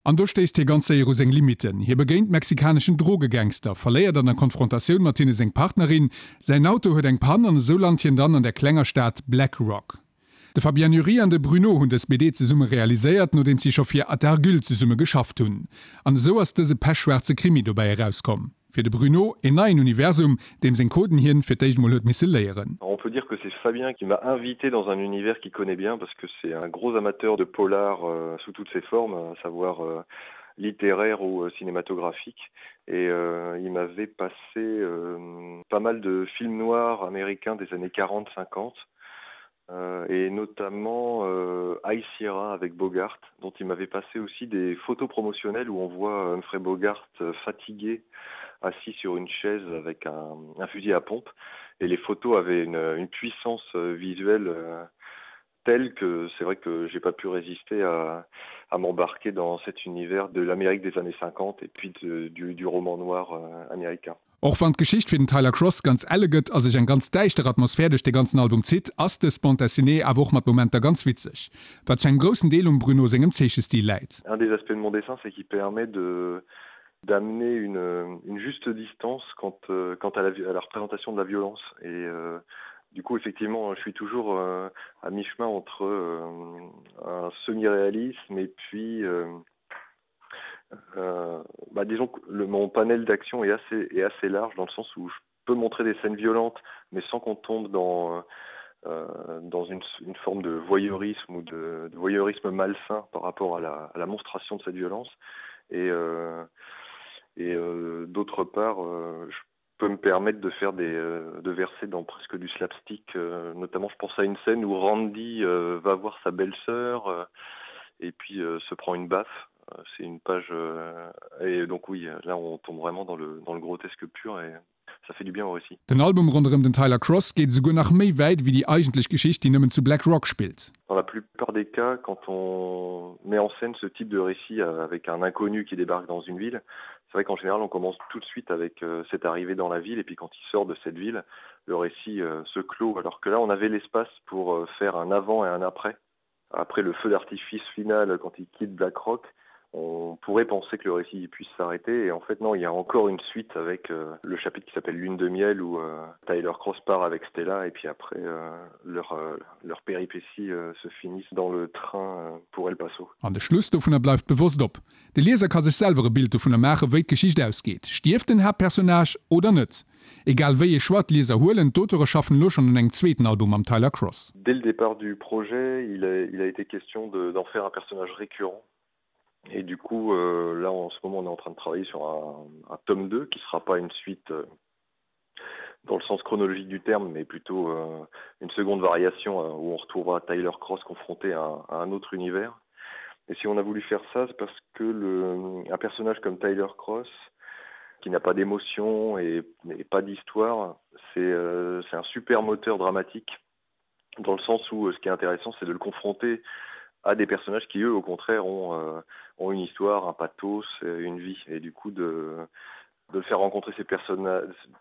An do stéisst hie ganz séier u seng Limitten. Hie begéint mexikaneschen Drogegangster, verléiert an der Konfrontatioun mat hinne seng Partnerin, säin Auto huet eng Pann an esou lant hien dann an der klenger Stad Black Rock. De Fabien Nury an de Bruno hunn dës BD zesumme realiséiert, nodeems si scho fir Atargul zesumme geschafft hunn. An esou ass dëse pechschwaarze Krimi dobäi erauskomm. Fir de Bruno een neien Universum, deem seng Coden hien fir d'éischt mol huet misse léieren. On peut dire que c'est Fabien qui m'a invité dans un univers qu'il connaît bien parce que c'est un gros amateur de polar euh, sous toutes ses formes, à savoir euh, littéraire ou euh, cinématographique et euh, il m'avait passé euh, pas mal de films noirs américains des années 40 50 euh, et notamment euh, High Sierra avec Bogart dont il m'avait passé aussi des photos promotionnelles où on voit Humphrey Bogart euh, fatigué assis sur une chaise avec un, un fusil à pompe et les photos avaient une, une puissance euh, visuelle euh, telle que c'est vrai que j'ai pas pu résister à, à m'embarquer dans cet univers de l'Amérique des années 50 et puis de, du, du roman noir euh, américain. Och wann d'Geschicht fir den Tyler Cross ganz elle gëtt a sech eng ganz däischter Atmosphär duerch de ganzen Album zitt, ass dës Bande dessinée awer och mat Momenter ganz witzeg, wat zu engem groussen Deel um Bruno sengem Zeechestil läit. Un des aspects de mon dessin, c'est qu'il permet de d'amener une, une juste distance quant, euh, quant à, la, à la représentation de la violence et euh, du coup effectivement je suis toujours euh, à mi-chemin entre euh, un semi-réalisme et puis euh, euh, bah, disons que le, mon panel d'action est assez, est assez large dans le sens où je peux montrer des scènes violentes mais sans qu'on tombe dans euh, dans une, une forme de voyeurisme ou de, de voyeurisme malsain par rapport à la, à la monstration de cette violence et euh, et euh, d'autre part euh, je peux me permettre de faire des euh, de verser dans presque du slapstick euh, notamment je pense à une scène où Randy euh, va voir sa belle-sœur euh, et puis euh, se prend une baffe euh, c'est une page euh, et donc oui là on tombe vraiment dans le dans le grotesque pur et ça fait du bien au récit. Den Album ronderëm den Tyler Cross geet esouguer nach méi wäit wéi déi eigentlech Geschicht, déi nëmmen zu Black Rock spillt. Dans la plupart des cas, quand on met en scène ce type de récit euh, avec un inconnu qui débarque dans une ville, c'est vrai qu'en général on commence tout de suite avec euh, cette arrivée dans la ville et puis quand il sort de cette ville, le récit euh, se clôt alors que là on avait l'espace pour euh, faire un avant et un après. Après le feu d'artifice final quand il quitte Black Rock, on pourrait penser que le récit puisse s'arrêter et en fait non il y a encore une suite avec euh, le chapitre qui s'appelle lune de miel où euh, Tyler Cross part avec Stella et puis après euh, leur, euh, leur péripétie euh, se finissent dans le train euh, pour El Paso. An de Schluss dovunner bleift bewosst op. De Lieser ka sech selwer e Bild dovunner maachen, wéi d'Geschicht ausgeet. Stierft den Haaptpersonnage oder net? Egal wéi ee Choix d'Lieser huelen, d'Auteure schaffen elo schonn un engem zweeten Album mam Tyler Cross. Dès le départ du projet, il a, il a été question d'en faire un personnage récurrent. Et du coup, euh, là en ce moment on est en train de travailler sur un, un tome 2 qui sera pas une suite euh, dans le sens chronologique du terme, mais plutôt euh, une seconde variation euh, où on retrouvera Tyler Cross confronté à un, à un autre univers. Et si on a voulu faire ça, c'est parce que le, un personnage comme Tyler Cross, qui n'a pas d'émotion et, et pas d'histoire, c'est euh, un super moteur dramatique dans le sens où euh, ce qui est intéressant, c'est de le confronter à des personnages qui eux au contraire ont, euh, ont une histoire, un pathos, euh, une vie et du coup de, de faire rencontrer ces personnes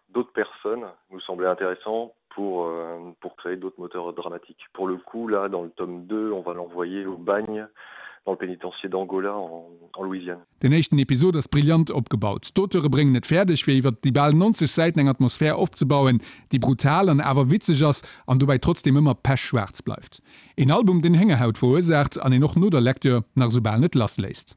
d'autres personnes nous semblait intéressant pour, euh, pour créer d'autres moteurs dramatiques. Pour le coup là dans le tome 2, on va l'envoyer au bagne dans le pénitencier d'Angola en, en Louisiane. Den éischten Episod ass brillant opgebaut. D'Auteure bréngen et fäerdeg, fir iwwer déi bal 90 Säiten eng Atmosphär opzebauen, déi brutal an awer witzeg ass an dobäi trotzdeem ëmmer pechschwaarz bleift. Een Album, deen Héngerhaut verursaacht an een och no der Lecture nach esou bal net lassléisst.